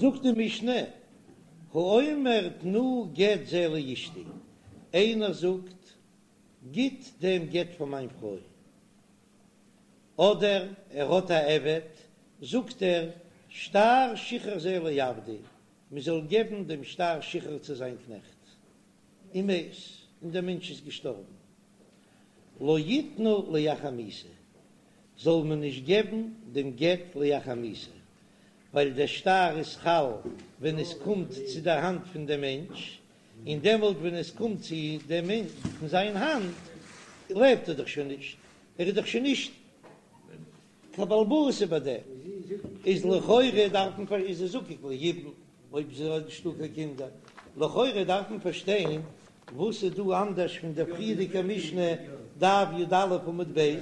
זאגט די משנה, האומר תנו גט זה לאשתי, איינער זאגט גיט דעם גט פאר מיין פרוי, אדער ער האט א עבד, זאגט ער שטר שחרור זה לעבדי, מען זאל געבן דעם שטר שחרור צו זיין קנעכט, ומת, און דער מענטש איז געשטארבן, לא יתנו לאחר מיתה, זאל מען נישט געבן דעם גט לאחר מיתה, ווייל דער שטר איז חל ווען עס קומט צו דער האנט פון דעם מענטש, און דעמאלט ווען עס קומט צו דעם מענטש אין זיין האנט, לעבט ער דאך שוין נישט, ער איז דאך שוין נישט קיין בעל הבית איבער דעם, איז לכאורה דארף מען פאר איז ער זקוק ליבום אויב ס'איז נישטא קיין קינדער, לכאורה דארף מען פארשטיין וואס איז דא אנדערש פון דער פריערדיגער משנה דף י"א עמוד ב',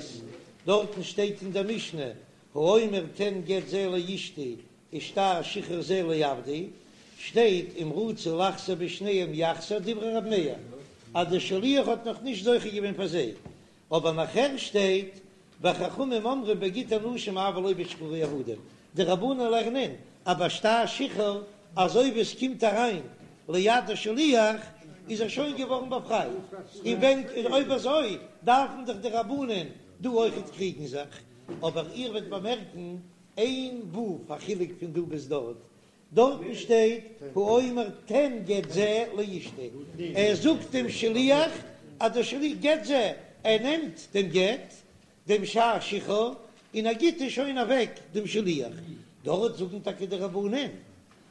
דארטן שטייט אין דער משנה האומר תן גט זה לאשתי ושטר שחרור זה לעבדי, שטייט אם רצה לחזור בשניהם יחזור דברי ר' מאיר אז דער שליח האט נאך נישט זוכה געווען פאר זיי, אבער נאכער שטייט וחכמים אומרים בגיטי נשים אבל לא בשחרורי עבדים, די רבנן לערנען אז ביי שטר שחרור אזוי ווי עס קומט אריין ליד השליח איז ער שוין געווארן באפרייט, און ווען אויב אזוי דארפן דאך די רבנן דא אויכעט קריגן זיך, אבער איר וועט באמערקן איין ו' א חילוק פון דא ביז דארט, דארטן שטייט האומר תן גט זה לאשתי, ער זאגט דעם שליח אז דער שליח גט זה, ער נעמט דעם גט, דעם שטר שחרור, און ער גיט עס שוין אוועק דעם שליח, דארט זאגן טאקע די רבנן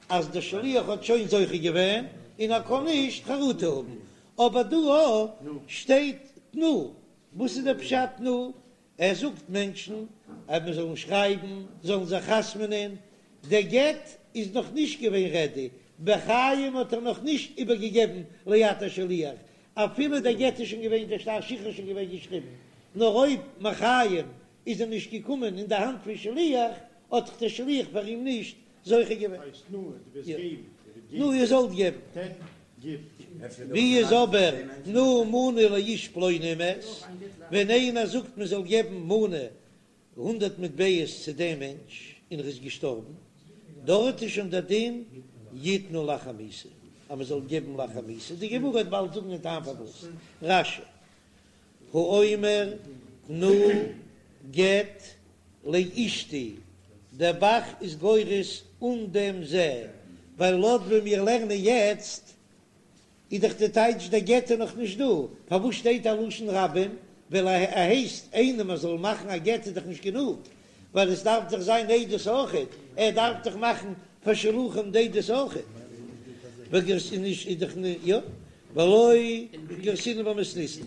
אז דער שליח האט שוין זוכה געווען און ער קען נישט חרטה האבן, אבער דא שטייט תנו, וואס איז דער פשט תנו? ער זאגט מענטשן אז מען זאל שרייבן, זאלן זיך חתמ'נען, דער גט איז נאך נישט געווען רעדי, בחיים האט ער נאך נישט איבערגעגעבן ליד השליח, אפילו דער גט איז שוין געווען, דער שטר שחרור איז שוין געווען געשריבן, נאר אויב מחיים איז ער נישט געקומען אין די האנט פון שליח, האט דאך דער שליח פאר אים נישט זוכה געווען. תנו איר זאלט געבן. ווי איז אבער תנו מנה לאיש פלוני ומת, ווען איינער זאגט מען זאל געבן מנה הונדערט מטבעות צו דעם מענטש און ער איז געשטארבן, דארט איז שוין דער דין יתנו לאחר מיתה, אז מען זאל געבן לאחר מיתה, די גמרא וועט באלד זאגן דעם טעם פארוואס. רש"י האומר תנו גט לאשתי, דער ב"ח איז גורס אן דעם זה, ווייל לויט ווי מיר לערנען יעצט איז דאך די טייטש דער גט איז נאך נישט דא, פארוואס שטייט א לשון רבים, ווייל ער הייסט איינעם ער זאל מאכן א גט איז דאך נישט גענוג, ווייל עס דארף דאך זיין עדות אויכעט, ער דארף דאך מאכן פאר שלוחים די עדות אויכעט, יא, ולא גרסינן במתניתין,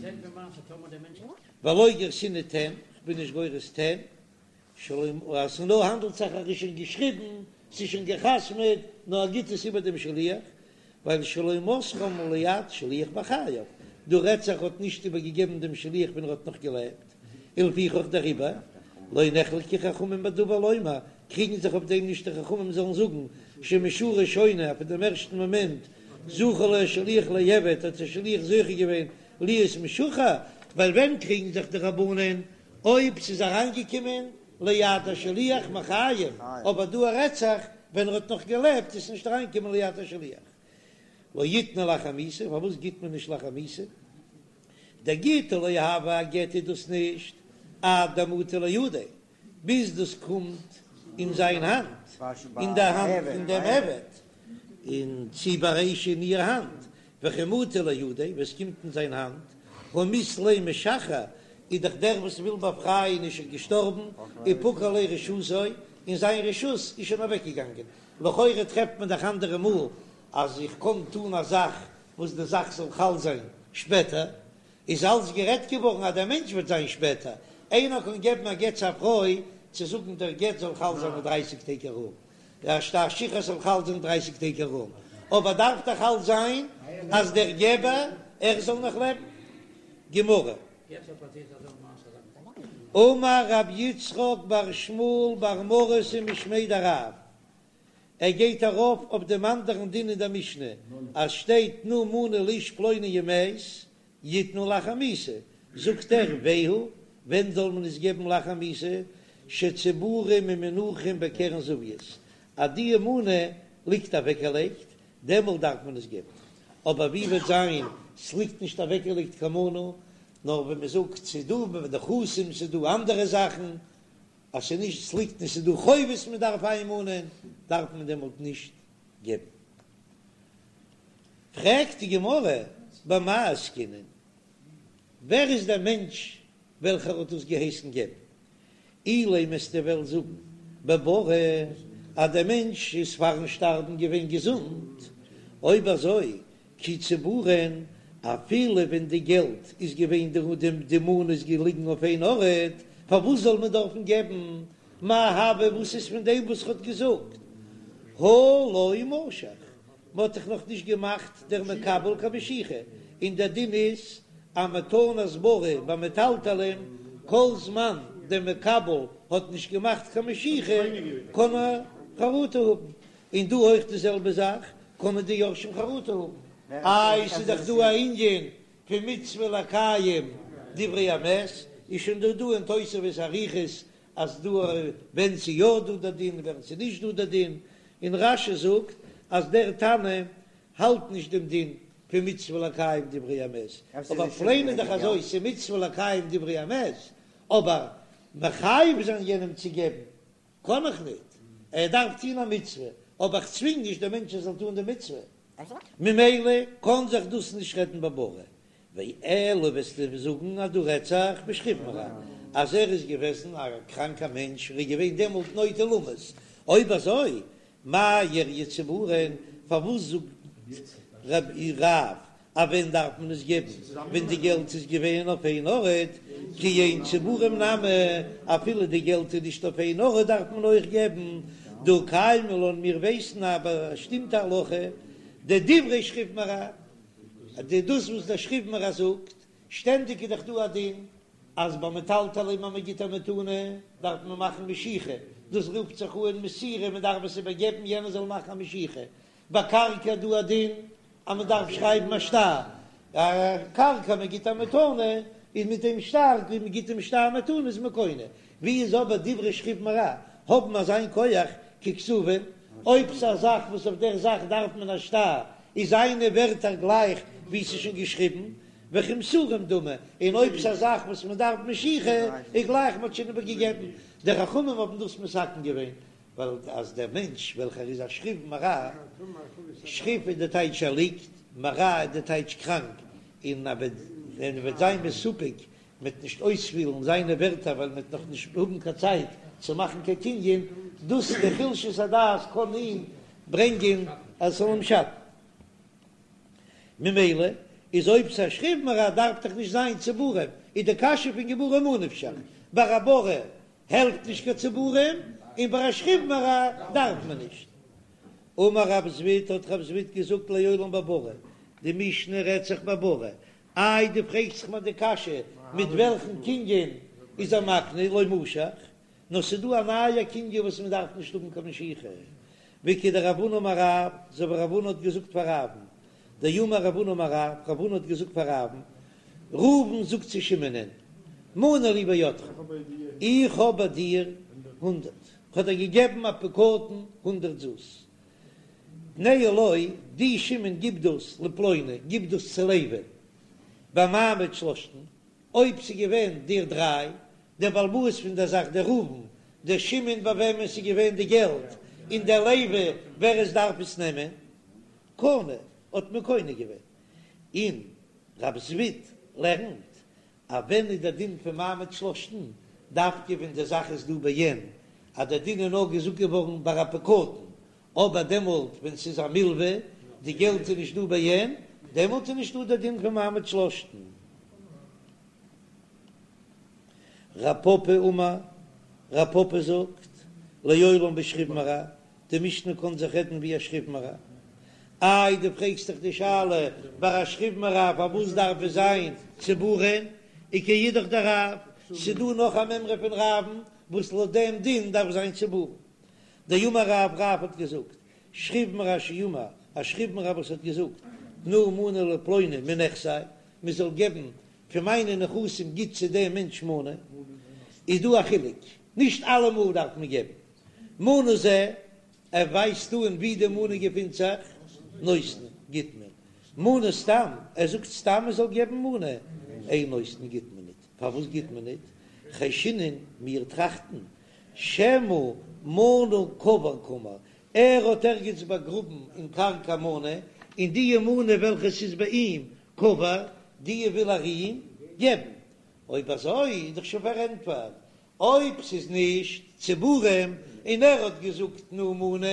ולא גרסינן תן, כ'בין נישט גורס תן, שלא אז ס'נאר האנדלט זיך אז ער איז שוין געשריבן, ס'איז שוין גע'חתמ'עט, נאר ער גיט עס איבער דעם שליח, ווייל שלא מסרם ליד שליח בחייו, דא רעדט זיך האט נישט איבער געגעבן דעם שליח ווען ער האט נאך געלעבט, ולפיכך דעריבער לא נחלקו חכמים בדבר לומר, קריגן זיך אויף דעם נישט די חכמים זאלן זאגן שמשעה ראשונה אז פון דעם ערשטן מאמענט זכה לו השליח לעבד האט דער שליח זוכה געווען להיות משוחרר, ווייל ווען קריגן זיך די רבנן אויב ס'איז אריינגעקומען ליד השליח מחיים, אבער דא רעדט זיך ווען ער האט נאך געלעבט איז נישט אריינגעקומען ליד השליח. לא יתנו לאחר מיתה, פארוואס גיט מען נישט לאחר מיתה? דגיטא לא הוי א גט איז דאס נישט עד דמטי לידיה, ביז דאס קומט אין זיין האנט, אין די האנט פון דעם עבד, און צי ביי אשה אין איר האנט, וכי מטי לידיה, ווען עס קומט אין זיין האנט, הא מית ליה משחרר, איז דאך דער וואס וויל באפרייען איז שוין געשטארבן, ופקע ליה רשותו, און זיין רשות איז שוין אוועקגעגאנגען. לכאורה טרעפט מען דאך אנדערע מאל אז איך קען טון א זאך וואס די זאך זאל חל זיין שפעטער, איז אלץ גערעדט געווארן אז דער מענטש וועט זיין שפעטער, איינער קען געבן א גט צו א פרוי צו זאגן דער גט זאל חל זיין אין דרייסיג טעג ארום, דער שטר שחרור זאל חל זיין דרייסיג טעג ארום, אבער דארף דאך חל זיין אז דער געבער ער זאל נאך לעבן. גמרא. אמר רב יצחק בר שמואל בר מרתא משמיה דרב, ער גייט ארויף אויף דעם אנדערן דין אין דער משנה, אז שטייט תנו מנה לאיש פלוני ומת, יתנו לאחר מיתה, זאגט ער והוא, ווען זאל מען עס געבן לאחר מיתה, שצבורים ומונחים בקרן זווית, אז די מנה. ליגט אוועקגעלייגט, דעמאלט דארף מען עס געבן. אבער ווי וועט זיין ס'ליגט נישט אוועקגעלייגט קיין מנה, נאר ווען מ'זאגט ס'איז דא נכסים, ס'איז דא אנדערע זאכן, אז ס'איז נישט ס'ליגט נישט ס'איז דא חובות מ'דארף איינמאנען, דארף מען דעמאלט נישט געבן. פרעגט די גמרא, במאי עסקינן? ווער איז דער מענטש וועלכער האט דאס געהייסן געבן? אילימא וועסטו וועלן זאגן בבריא אז דער מענטש איז פארן שטארבן געווען געזונט, אויב אזוי כי צבורין, אפילו ווען די געלט איז געווען די די מנה איז געליגן אויף איין ארט, פארוואס זאל מען דארפן געבן? מאי הוי וואס איז פון דעם וואס ער האט געזאגט הא לא משך? מען האט דאך נאך נישט געמאכט דער מקבל קיין משיכה, און דער דין איז אז מתנת בריא ביי מטלטלין, כל זמן דער מקבל האט נישט געמאכט קיין משיכה קען ער חרטה האבן, און דא אויך די זעלבע זאך, קענען די יורשים חרטה האבן, איי ס'איז דאך דא א ענין פון מצוה לקיים דברי המת, איז שוין דא דא אין תוספות אריכות אז דא ווען ס'איז יא דא דער דין און ווען ס'איז נישט דא דער דין, און רש"י זאגט אז דער תנא האלט נישט דעם דין פון מצוה לקיים דברי המת, אבער פלעין איז דאך אזוי ס'איז מצוה לקיים דברי המת, אבער מחייב זיין יענעם צו געבן קען איך ניט, ער דארף טון א מצוה, אבער איך צווינג נישט דעם מענטש ער זאל טון די מצוה. ממילא קען זיך דאס נישט רעדן בבריא, ואלא וועסטו זאגן אז דא רעדט זיך בשכיב מרע אז ער איז געוועזן א קראנקע מענטש ער איז געווען דעמאלט נוטה למות, אויב אזוי מאי איריא צבורין, פארוואס זאגט רב אז ווען דארף מען עס געבן ווען די געלט איז געווען אויף איין ארט, כי אין צבורים נמי, אפילו די געלט איז נישט אויף איין ארט דארף מען אויך געבן, דהא קיימא לן מיר ווייסן א באשטימטע הלכה, דדברי שכיב מרע, די דאס וואס דער שכיב מרע זאגט, שטענדיג איז דאך דא א דין אז ביי מטלטלין אז מען גיט א מתנה דארף מען מאכן משיכה, דאס רופט זיך אן מסירה, מען דארף עס איבערגעבן יענער זאל מאכן א משיכה, ביי קרקע איז דא א דין אז מען דארף שרייבן א שטר, א קרקע מען גיט א מתנה איז מיט דעם שטר, ווי מען גיט דעם שטר מתנה איז מען קונה, ווי איז אבער דברי שכיב מרע האבן אזיין כח ככתובין, אויב ס'איז א זאך וואס אויף דער זאך דארף מען א שטר, איז זיינע ווערטער גלייך ווי ס'איז שוין געשריבן, וכמסורים דמי, און אויב ס'איז א זאך וואס מען דארף משיכה, איז גלייך מ'האט שוין איבערגעגעבן. די חכמים האבן דאס מתקן געווען, ווייל אז דער מענטש וועלכער איז א שכיב מרע, שכיב איז די טייטש ער ליגט, מרע איז די טייטש קראנק, און ער וועט ווען ער וועט זיין מסופק מ'וועט נישט אויספילן זיינע ווערטער ווייל מ'וועט נאך נישט האבן קיין צייט צו מאכן קיין קנין, דאס די חולשת הדעת קען אים ברענגען אז עס זאל אים שאטן. ממילא איז אויב ס'איז א שכיב מרע דארף דאך נישט זיין צבורים, איז די קשיא פון גמרא ממה נפשך, ביי א בריא העלפט נישט קיין צבורים, און ביי א שכיב מרע דארף מען נישט. אמר רב זביד האט רב זביד געזאגט לעולם בבריא, די משנה רעדט זיך בבריא, איי דו פרעגסט זיך מיר די קשיא מיט וועלכן קנין איז ער מקנה לא משך, נאר ס'איז דא א נייע קנין וואס מען דארף נישט האבן קיין משיכה, וכדרב הונא אמר רב, אזוי ווי רב הונא האט געזאגט פאר רב'ן, דאמר רב הונא אמר רב, רב הונא האט געזאגט פאר רב'ן, ראובן זאגט צו שמעונ'ען, מנה לי בידך, איך האב ביי דיר הונדרעט, כ'האב דיר געגעבן א פקדון הונדרעט זוז, תנהו לו, דו שמעון גיב דאס לפלוני, גיב דאס צו לוי'ן, במעמד שלשתן, אויב ס'איז געווען די דריי, דער בעל הבית פון דער זאך דער ראובן, דער שמעון ביי וועמען ס'איז געווען די געלט, און דער לוי ווער עס דארף עס נעמען, קנה, האט מען קונה געווען. און רב זביד לערנט אז ווען איז דער דין פון מעמד שלשתן, דווקא ווען די זאך איז דא בעין, אז דער דין איז נאר געזאגט געווארן ביי א פקדון, אבער דעמאלט ווען ס'איז א מלווה, די געלט איז נישט דא בעין, דעמאלט איז נישטא דער דין פון מעמד שלשתן. רב פפא אמר, רב פפא זאגט, לעולם בשכיב מרע, די משנה קען זיך רעדן ווי א שכיב מרע. איי דו פרעגסט דאך די שאלה ביי א שכיב מרע פארוואס דארף עס זיין צבורין, וכאידך דרב, ס'דא נאך א מימרא פון רב'ן וואס לויט דעם דין דארף זיין צבורין. דאמר רב, רב האט געזאגט, שכיב מרע שאמר, א שכיב מרע וואס האט געזאגט, תנו מנה לפלוני מנכסי, מען זאל געבן פון מיינע נכסים גיט צו דעם מענטש מנה, איז דא א חילוק, נישט אלעמאל דארף מען געבן מנה זה. ער ווייזט אן ווי די מנה געפינט זיך, נותנין, גיט מען. מנה סתם, ער זאגט סתם מען זאל געבן מנה, אין נותנין גיט מען ניט. פארוואס גיט מען ניט? חיישינן, מיר טראכטן, שמא מנה קבור קאמר, ער האט ערגעץ באגראבן אין קרקע מנה, און די מנה וועלכע ס'איז ביי אים קבור, די וויל ער אים געבן. אויב אזוי איז דאך שוין פארענטפערט, אויב ס'איז נישט צבורים און ער האט געזאגט תנו מנה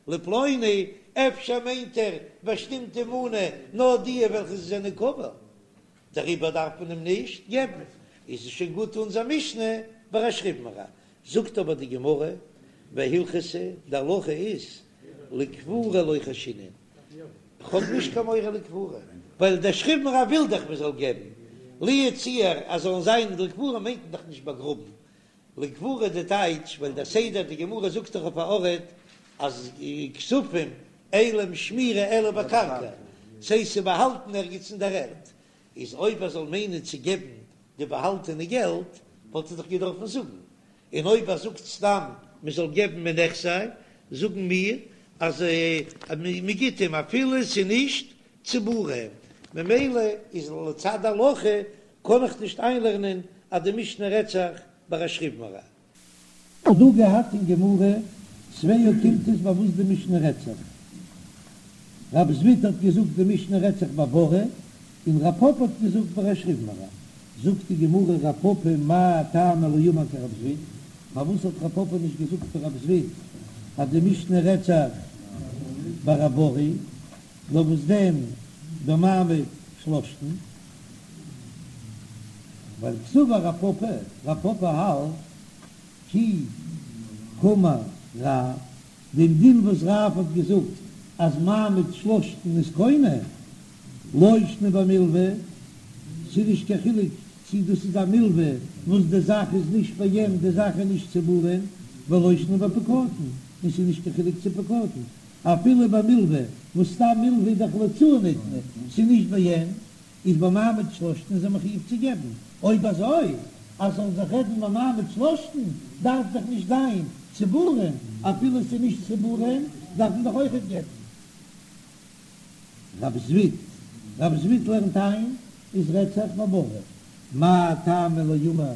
לפלוני, אפשר מיינט ער באשטימטע מנה נאר די וועלכע זענען קבור, דעריבער דארף מען אים נישט געבן, איז עס שוין גוט אונזער משנה ביי א שכיב מרע. זאגט אבער די גמרא, והלכתא, די הלכה איז לקבורה לא חיישינן, כ'האב נישט קיין מורא לקבורה, ווייל דער שכיב מרע וויל דאך מען זאל געבן, לו יצוייר אז זאלן זיין לקבורה מיינט מען דאך נישט באגראבן, לקבורה די טייטש, ווייל דער סדר די גמרא זאגט דאך אויף א ארט אז כספים אין להם שמירה אלא בקרקע, ס'הייסט ס'איז באהאלטן ערגעץ אין דער ערד, איז אויב ער זאל מיינען צו געבן די באהאלטענע געלט וואלט ער דאך געדארפן זאגן, און אויב ער זאגט סתם מען זאל געבן מנכסי, זאגן מיר אז מען גיט אים אפילו ס'איז נישט צבורים, ממילא איז לצד הלכה קען איך נישט איינלערנען אז די משנה רעדט זיך ביי א שכיב מרע. האט דא געהאט אין גמרא צוויי אוקימתות ביי וואס די משנה רעדט זיך. רב זביד האט געזאגט די משנה רעדט זיך ביי ברי, און רב פפא האט געזאגט ביי א שכיב מרע. זאגט די גמרא רב פפא מאי טעמא לא אמר כרב זביד, פארוואס האט רב פפא נישט געזאגט ווי רב זביד אז די משנה רעדט זיך ביי א ברי, נאר וואס דען במעמד שלשתן? ווייל קסבר רב פפא, רב פפא האלט כי קאמר רב, דעם דין וואס רב האט געזאגט אז מעמד שלשתן איז קונה, לא שנא במלוה, ס'איז נישט קיין חילוק צי דאס איז א מלוה וואס די זאך איז נישט ביי אים, די זאך איז נישט צבורים, ולא שנא בפקדון, און ס'איז נישט קיין חילוק צו פקדון, אפילו ביי מלוה, וואס סתם מלוה איז דאך להוצאה ניתנה, ס'איז נישט ביי אים, איז במעמד שלשתן איז ער מחויב צו געבן, אויב אזוי אז ס'זאל זיך רעדן במעמד שלשתן דארף דאך נישט זיין צבורים, אפילו ס'איז נישט צבורים דארף מען דאך אויכעט געבן. רב זביד, רב זביד לערנט איין איז רעדט זיך בברי, מאי טעמא לא אמר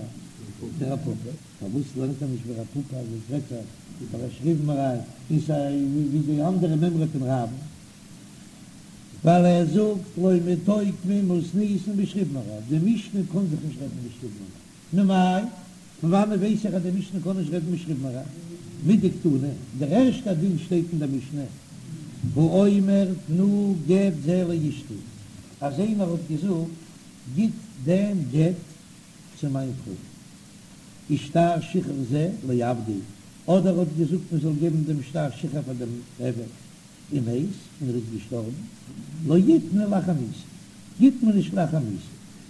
כרב פפא, פארוואס לערנט ער נישט ווי רב פפא אז עס רעדט זיך ביי א שכיב מרע און סיי ווי די אנדערע מימרא פון רב'ן, ווייל ער זאגט לא מיתוקמא מתניתין בשכיב מרע, די משנה קען זיך נישט רעדן בשכיב מרע, ממאי? פון וואנעט ווייס איך אז די משנה קען נישט רעדן בשכיב מרע? מדקתני, דער ערשטער דין שטייט אין דער משנה, האומר תנו גט זה לאשתי, אז איינער האט געזאגט גיט דעם גט צו מיין פרוי, ושטר שחרור זה לעבדי, אדער האט געזאגט מען זאל געבן דעם שטר שחרור פאר דעם עבד, ומת, און ער איז געשטארבן, לא יתנו לאחר מיתה, גיט מען נישט לאחר מיתה.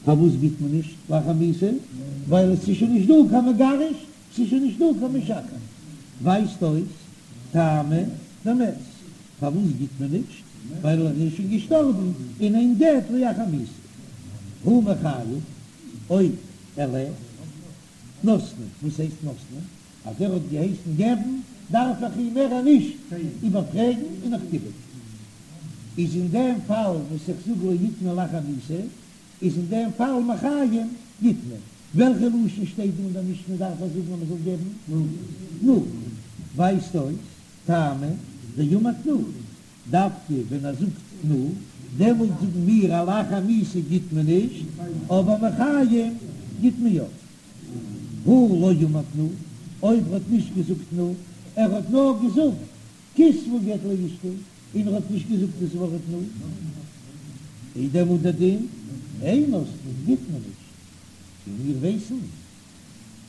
פארוואס גיט מען נישט לאחר מיתה? ווייל עס איז שוין נישט דא קיין מגרש, ס'איז שוין נישט דא קיין משחרר. ווייזט אויס טעמא דמת. פארוואס גיט מען נישט? ווייל ער איז שוין געשטארבן און אין גט לאחר מיתה. הא מחיים, אויב ער לעבט, נותנין. וואס הייסט נותנין? אז ער האט געהייסן געבן דארף איך אים מער נישט איבערפרעגן און איך גיב אים. איז אין דעם פאל וואס איך זאג לא יתנו לאחר מיתה, איז אין דעם פאל מחיים גיט מען. וועלכע לשון שטייט דא אין דער משנה דארף ער זאגן אז מען זאל געבן תנו? ווייזט אויס טעמא דאמר תנו, דווקא ווען ער זאגט תנו דעמאלט זאגן מיר אז לאחר מיתה גיט מען נישט, אבער מחיים גיט מען יא. הא לא אמר תנו, אויב ער האט נישט געזאגט תנו, ער האט נאר געזאגט כתבו גט לאשתי, און ער האט נישט געזאגט דאס ווארט תנו, איז דעמאלט דער דין אין נותנין גיט מען נישט, און מיר ווייסן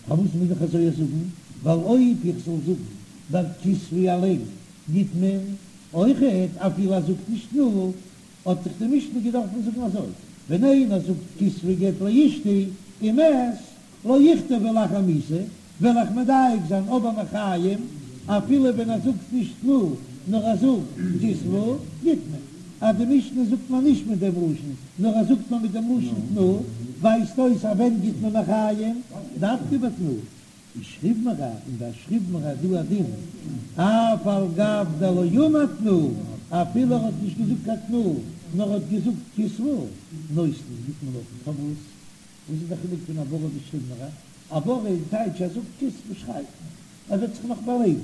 פארוואס מוז איך אזוי זאגן, ווייל אויב איך זאל זאגן ביי כתבו אליין גיט מען אויכעט אפילו ער זאגט נישט תנו, האט זיך די משנה געדארפן זאגן אזוי, ווען איינער זאגט כתבו גט לאשתי ומת לא יכתבו לאחר מיתה, וועל איך מדייק זיין אבער מחיים, אפילו ווען ער זאגט נישט תנו נאר ער זאגט כתבו, גיט מען. אז די משנה זאגט מען נישט מיט דעם לשון, נאר ער זאגט מען מיט דעם לשון תנו, ווייזט אויס אז ווען גיט מען מחיים? דווקא ביי תנו. איז שכיב מרע, און ביי שכיב מרע איז דא א דין, אף על גב דלא אמר תנו, אפילו ער האט נישט געזאגט קיין תנו, נאר ער האט געזאגט כתבו, נותנין, גיט מען נאך, פארוואס? וואס איז די חילוק פון א ברי ביז שכיב מרע? א ברי איז טייטש ער זאגט כתבו שרייב, ער וועט זיך נאך באלעבן,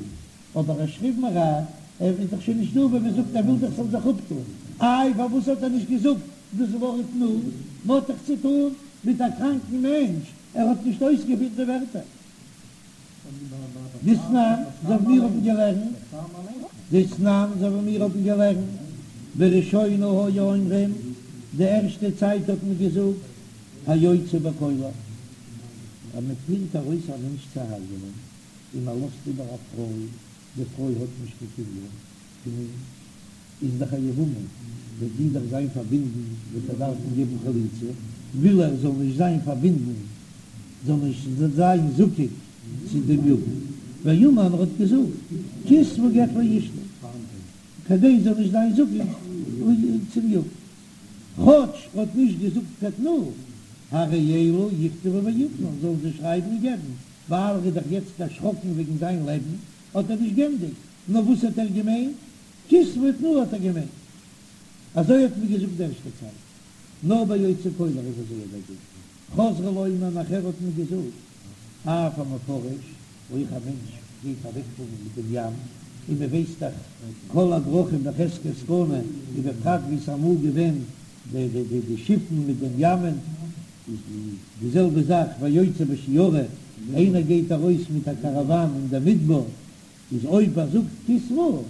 אבער א שכיב מרע, ער איז דאך שוין נישט דא ווען מען זאגט ער וויל דאך ס'זאל זיך אפטון, איי פארוואס האט ער נישט געזאגט דאס ווארט תנו? מ'האט דאך צוטון מיט א קראנקן מענטש, ער האט נישט אויסגעפירט די ווערטער. דתנן, אזוי ווי מיר האבן געלערנט, דתנן, אזוי ווי מיר האבן געלערנט, בראשונה היו אומרים, די ערשטע צייט האט מען געזאגט, היוצא בקולר, אז מען פירט ארויס א מענטש צו הרג'נען, און מען לאזט איבער א פרוי, די פרוי האט נישט קיין קינדער פון אים, איז דאך א יבמה, וועט זי דאך זיין פארבינדן, וועט ער דארפן געבן חליצה, וויל ער זאל נישט זיין פארבינדן, זאל נישט זיין זקוק צו דעם יבם, ואמר ער האט געזאגט, כתבו גט לאשתי, כדי זאל נישט זיין זקוק צום יבם, כאטש ער האט נישט געזאגט קיין תנו, הרי אלו יכתבו ויתנו, זאלן זיי שרייבן און געבן, ווייל ער איז דאך יעצט דערשראקן וועגן זיין לעבן, האט ער נישט גענדיגט, נאר וואס האט ער געמיינט? כתבו ותנו האט ער געמיינט. אזוי האט מען געזאגט די ערשטע צייט. נאר ביי יוצא קולר איז אזוי דער דין. חזרו לומר נאכער האט מען געזאגט אף המפרש, אויך א מענטש גייט אוועקפארן מיט דעם ים, און מען ווייסט דאך כל הדרכים בחזקת סכנה, ובפרט ווי ס'איז אמאל געווען די די די שיפן מיט דעם ימ'ען, איז די זעלבע זאך והיוצא בשיירא, איינער גייט ארויס מיט א קאראוואן אין דער מדבר, איז אויב ער זאגט כתבו,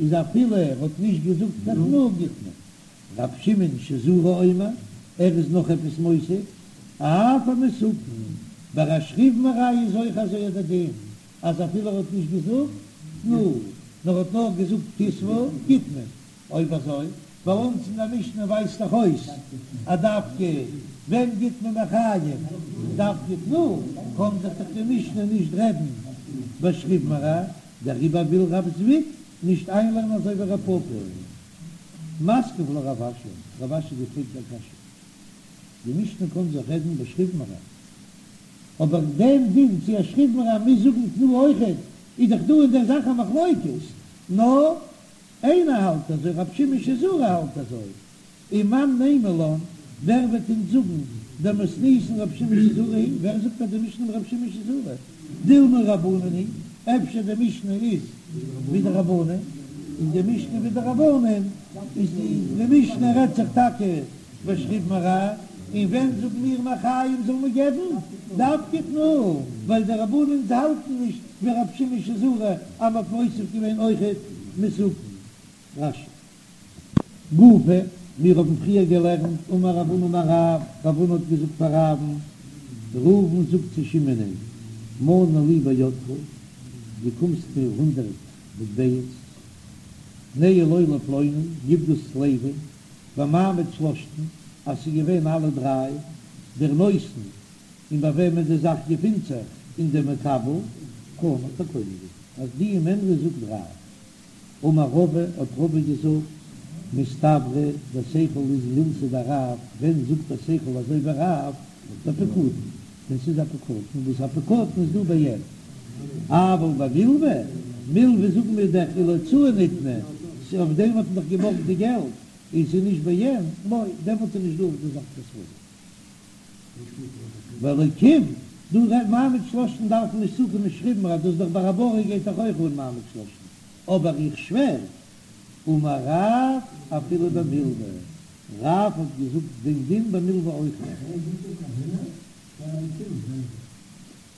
איז אפילו ער האט נישט געזאגט קיין תנו גיט מען. רב שמעון שזורי אומר, ער איז נאך עפעס מוסיף, אף המסוכן, ביי א שכיב מרע איז אויך אזוי דער דין, אז אפילו ער האט נישט געזאגט תנו, נאר האט נאר געזאגט כתבו, גיט מען. אויב אזוי, ביי אונז אין דער משנה ווייזט דאך אויס אז דווקא ווען גיט מען מחיים דווקא תנו, קען זיך דאך די משנה נישט רעדן בשכיב מרע, דעריבער וויל רב זביד נישט איינלערנען אזוי ווי רב פפא. מתקיף לה רב אשי, רב אשי געפרעגט א קשיא, די משנה קען זיך רעדן בשכיב מרע, אבער דעם דין צו א שכיב מרע מוז זאגן תנו אויכעט, איז דאך דא אין דער זאך א מחלוקת, נאר איינער האלט אזוי, רב שמעון שזורי האלט אזוי, ומאן נימא לן, ווער וועט אונז זאגן דמתניתין רב שמעון שזורי היא, ווער זאגט אז די משנה איז רב שמעון שזורי, דילמא רבנן היא, אפשר די משנה איז ווי די רבנן, און די משנה ווי די רבנן איז די משנה רעדט זיך טאקע בשכיב מרע, און ווען זאגן מיר מחיים זאל מען געבן דווקא תנו, ווייל די רבנן האלטן נישט ווי רב שמעון שזורי אז מ'האט מוסיף געווען אויכעט מסוכן. רש"י. גופא, מיר האבן פריער געלערנט, אמר רב הונא אמר רב, רב הונא האט געזאגט פאר רב'ן, ראובן זאגט צו שמעונ'ען, מנה לי בידך, דו קומסט מיר הונדרעט מטבעות, תנהו לו לפלוני, גיב דאס צו לוי'ן, במעמד שלשתן, אז ס'איז געווען אלע דריי, דער נותן, און ביי וועמען די זאך געפינט זיך, און דער מקבל, קנה, האט ער קונה געווען. אז די מימרא זאגט רב. אמר רבא, האט רבא געזאגט, מסתברא דער שכל איז מילתא דרב, ווען זאגט דער שכל אזוי ווי רב, בפקדון, ווען ס'איז א פקדון, וואס א פקדון איז דא בעין, אבל במלוה, מלוה זאגן מיר דאך ולהוצאה ניתנה, ס'איז אויף דעם האט מען דאך געבארגט די געלט, און ס'איז נישט בעין, לא, דעמאלט איז נישט דא אויף די זאך קיין סברא. והאלקים, דא רעדט מעמד שלשתן דארף מען נישט צוקומען שכיב מרע, דאס איז דאך ביי א ברי גייט דאך אויך אן מעמד שלשתן, אבער איך שווער, אמר רב אפילו במלוה, רב האט געזאגט דעם דין במלוה אויך.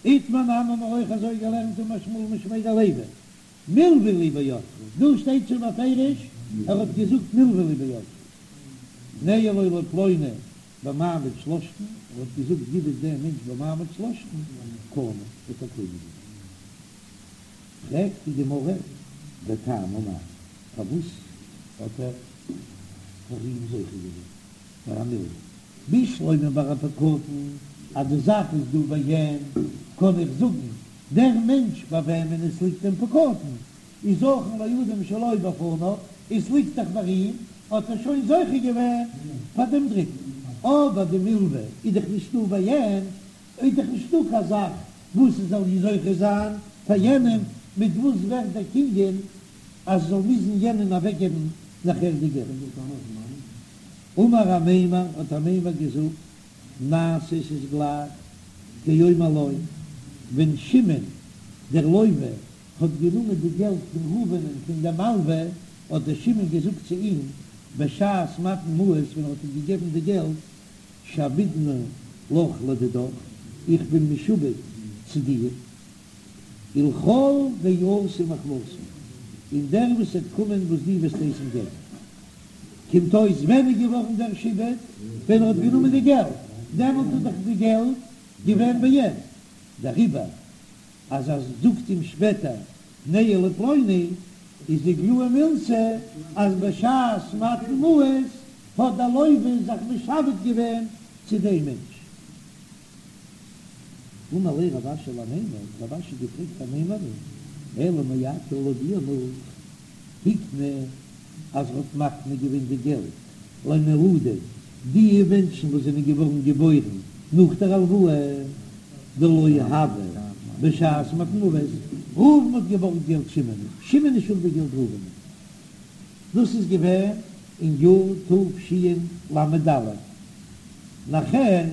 איתמר נמי האבן מיר אויך אזוי געלערנט אמר שמואל משמיה דלוי, מלוה לי בידך, דא שטייט שוין בפירוש ער האט געזאגט מלוה לי בידך, תנהו לו לפלוני במעמד שלשתן, ער האט געזאגט גיב עס דעם מענטש במעמד שלשתן, קנה, האט ער קונה געווען. פרעגט די גמרא, וטעמא מאי, פארוואס האט ער פאר אים זוכה געווען ביי א מלוה? בשלמא ביי א פקדון אז די זאך איז דא בעין, קען איך זאגן דער מענטש ביי וועמען עס ליגט דעם פקדון איז זכין לאדם שלא בפניו, עס ליגט דאך ביי אים, האט ער שוין זוכה געווען פאר דעם דריטן. אבער די מלוה איז דאך נישטא בעין, איז דאך נישטא קיין זאך. וואס עס זאל זוכה זיין פאר יענעם, מיט וואס ווערט דער קנין אז עס זאל מוזן יענעם אוועקגעבן נאכער די געלט? אמר אמימר, האט אמימר געזאגט, נעשה ס'איז גלייך כאומר לו, ווען שמעון דער לוה האט גענומען די געלט פון ראובנ'ען פון דעם מלווה, האט דער שמעון געזאגט צו אים בשעת מתן מעות ווען ער האט אים געגעבן די געלט, שעבדנא לך לדידך, איך בין משועבד צו דיר, ולכל דאתי מחמתך, און דער וואס וועט קומען וואס דו וועסט הייסן געבן. קומט אויס ווען איז געווארן דער שעבוד? ווען ער האט גענומען די געלט, דעמאלט איז דאך די געלט געווען ביי אים, דעריבער אז ער זאגט אים שפעטער תנהו לפלוני, איז איגלאי מילתא אז בשעת מתן מעות האט דער לוה זיך משעבד געווען צו דעם מענטש. אמר ליה רב אשי לאמימר, האט רב אשי געפרעגט אמימר'ן, אלא מעתה לויט דיר נאך, הקנה אז ער האט מקנה געווען די געלט לנולדים, די מענטשן וואס זענען געווארן געבוירן נאך דער הלוואה, דלא הוו בשעת מתן מעות, ראובן האט געבארגט געלט שמעון, שמעון איז שולדיג געלט ראובן, דאס איז געווען אין יאר תשל"ד, נאכער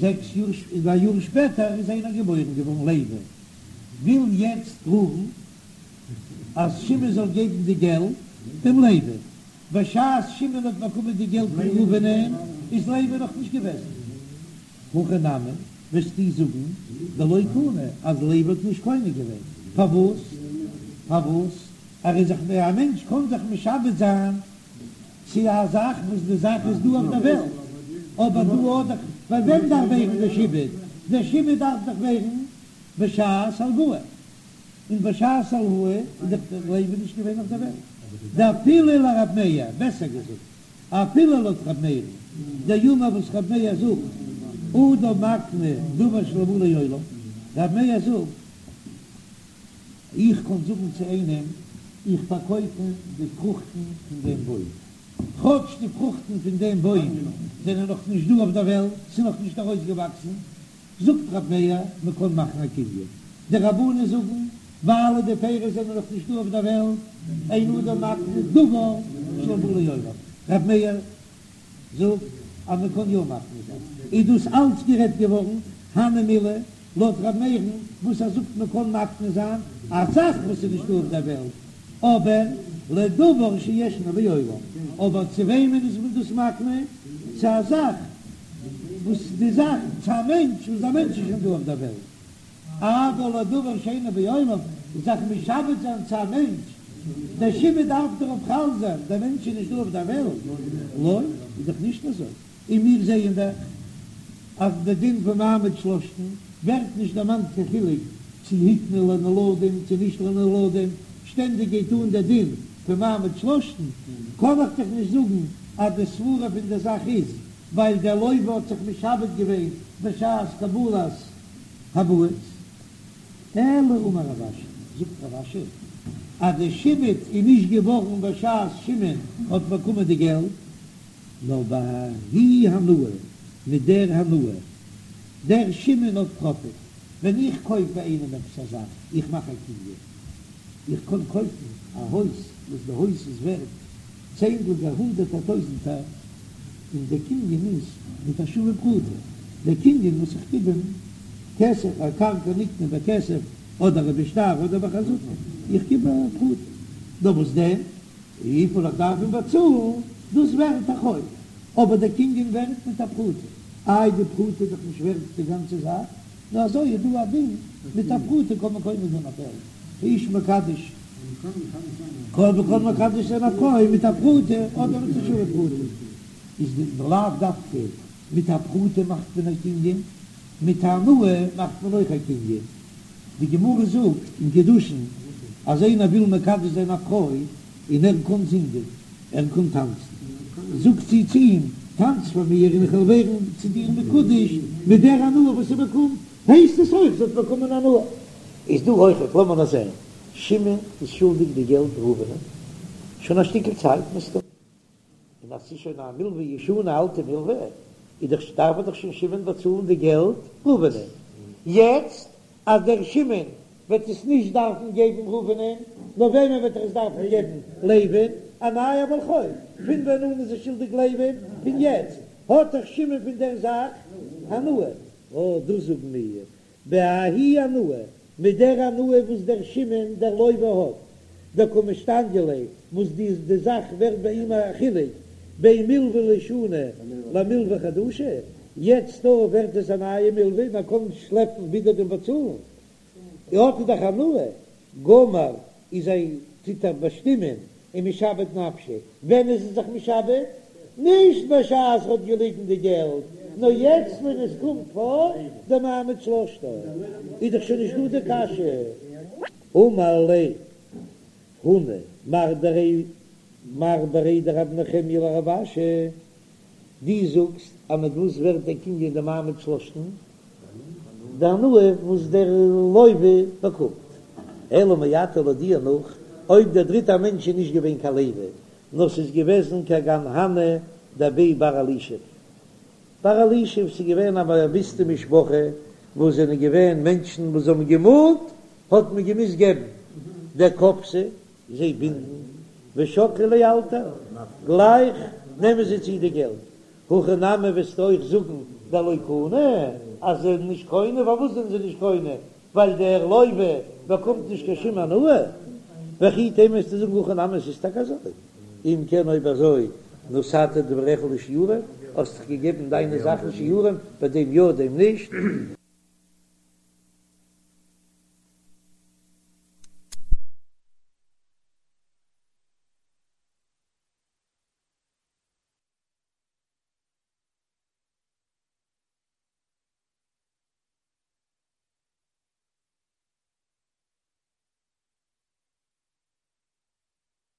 זעקס יאר, א יאר שפעטער איז איינער געבוירן געווארן לוי, וויל יעצט ראובן אז שמעון זאל געבן די געלט דעם לוי, בשעת שמעון האט באקומען די געלט פון ראובנ'ען איז לוי נאך נישט געוועזן. הכי נמי, וועסטו זאגן דלא קנה אז לוי האט נישט קונה געווען, פארוואס? פארוואס? ער איז זיך א מענטש קען זיך משעבד זיין צו א זאך וואס די זאך איז דא אויף דער וועלט, אבער דא האט דאך ביי וועם דארף ווערן דער שעבוד? דער שעבוד דארף דאך ווערן בשעת הלוואה. און בשעת הלוואה איז דאך דער לוי נישט געווען אויף דער וועלט, דאפילו לרב מאיר, בעסער געזאגט, אפילו לויט רב מאיר'ן, דאמר וואס רב מאיר זאגט, אדם מקנה דבר שלא בא לעולם, רב מאיר זאגט, איך קען זאגן צו איינעם, איך פארקויף אים די פרוכטן פון דעם בוים, כאטש די פרוכטן פון דעם בוים זענען נאך נישט דא אויף דער וועלט, ס'איז נאך נישט ארויסגעוואקסן, זאגט רב מאיר, מען קען מאכן א קנין. די רבנן זאגן, ווייל די פירות זענען נאך נישט דא אויף דער וועלט, אין אדם מקנה דבר שלא בא לעולם. רב מאיר זאגט אז מען קען יא מקנה זיין. איז דאס אלץ גערעדט געווארן, הני מילי, לויט רב מאיר'ן וואס ער זאגט מען קען מקנה זיין א זאך וואס איז נישט דא אויף דער וועלט, אבער לדבר שישנו בעולם, אבער צו וועמען איז מען דאס מקנה? צו א זאך וואס די זאך, צו א מענטש וואס דער מענטש איז שוין דא אויף דער וועלט, אבל לדבר שאינו בעולם, זיך משעבד זיין צו א מענטש, דער שעבוד דארף דערויף חל זיין, דער מענטש איז נישט דא אויף דער וועלט, לא, איז דאך נישט אזוי, און מיר זעען דאך אז די דין פון מעמד שלשתן ווערט נישט דערמאנט קיין חילוק צו הקנה לנולדים צו נישט לנולדים, שטענדיג גייט אן דער דין פון מעמד שלשתן, קען איך דאך נישט זאגן אז די סברה פון דער זאך איז ווייל דער לוה האט זיך משעבד געווען בשעת קבלת המעות. אלא אמר רב אשי, זאגט רב אשי אז די שעבוד איז נישט געווארן בשעת שמעון האט באקומען די געלט, נאר בההיא הנאה, מיט דער הנאה, דער שמעון האט פראפיט, ווען איך קויף ביי איינעם עפעס א זאך, איך מאך א קנין, איך קען קויפן א הויז וואס די הויז איז ווערט צענדליגער הונדערטער טויזנטער, און דער קנין איז מיט א שווה פרוטה, דער קנין וואס איך גיב אים כסף, א קרקע נקנה בכסף אדער בשטר אדער בחזקה, איך גיב א פרוטה, נאר וואס דען? וויפיל איך דארף אים באצאלן, דאס ווערט א חוב, אבער דער קנין ווערט מיט א פרוטה, איי די פרוטה איז דאך נישט ווערט די גאנצע זאך, נאר אזוי איז דא א דין, מיט א פרוטה קען מען קונה זיין א פעלד, האיש מקדש, קען מען מקדש זיין א פרוי מיט א פרוטה אדער מיט א שווה פרוטה, איז די לאו דווקא מיט א פרוטה מאכט מען א קנין, מיט א הנאה מאכט מען אויך א קנין. די גמרא זאגט אין קידושין אז איינער וויל מקדש זיין א פרוי און ער קען זינגען, ער קען טאנצן, זאגט זי צו אים, טאנץ פאר מיר און איך וועל ווערן צו דיר מקודש מיט דער הנאה וואס זי באקומט, הייסט עס אויך זי האט באקומען הנאה. איז דא אויכעט, לאמיר נאר זען, שמעון איז שולדיג די געלט ראובנ'ען שוין א שטיקל צייט מסתמא. און אז ס'איז שוין א מלווה ישנה, א אלטע מלווה, איז דאך דארף ער דאך שוין שמעון באצאלן די געלט ראובנ'ען. יעצט. אז דער שמעון וועט עס נישט דארפן געבן ראובנ'ען, נאר וועמען וועט ער עס דארפן געבן? לוי'ן, א נייער בעל חוב. פון ווען אן איז ער שולדיג לוי'ן? פון יעצט האט דאך שמעון פון דער זאך הנאה. אָ, דאס זאגן מיר, בההיא הנאה, מיט דער הנאה וואס דער שמעון דער לוה האט, דקא משתניא ליה, וואס די די זאך ווערט ביי אים א חילוק בין מלוה לישנה למלוה חדשה, יעצט דא ווערט עס א נייע מלוה, מען קען שלעפן ווידער דעם באצאלן, האט ער דאך הנאה, גמר איז ער טוט ער באשטימען ומשעבד נפשיה, ווען איז ער זיך משעבד? נישט בשעת ער האט געליגן די געלט, נאר יעצט ווען עס קומט פאר די מעמד שלשתן, איז דאך שוין נישט דא די קשיא. אמר ליה הונא מר דרי מר בריה דרב נחמיה לרב אשי, דו זאגסט אז מיט וואס ווערט דער קנין די מעמד שלשתן? די הנאה וואס דער לוה באקומט. אלא מעתה לויט דיר נאך, אויב דער דריטער מענטש איז נישט געווען קיין לוי, נאר ס'איז געוועזן כגון הני דבי בר אלישיב. בר אלישיב, ס'איז געווען א באוויסטע משפחה וואס זענען געווען מענטשן וואס האבן געמאנט, האט מען געמוזט געבן דכפתי זיי בינדן ושקלי לאלתר, גלייך נעמען זיי צו די געלט. הכי נמי וועסטו אויך זאגן דלא קנו, אז זיי זענען נישט קונה, פארוואס זענען זיי נישט קונה? ווייל דער לוה באקומט נישט קיין שום הנאה. וכי תימא וועסטו זאגן הכי נמי עס איז טאקע אזוי. אם כן אויב אזוי נתת דבריך לשיעורים, האסט דאך געגעבן דיינע זאכן שיעורים, ביי דעם יא דעם נישט.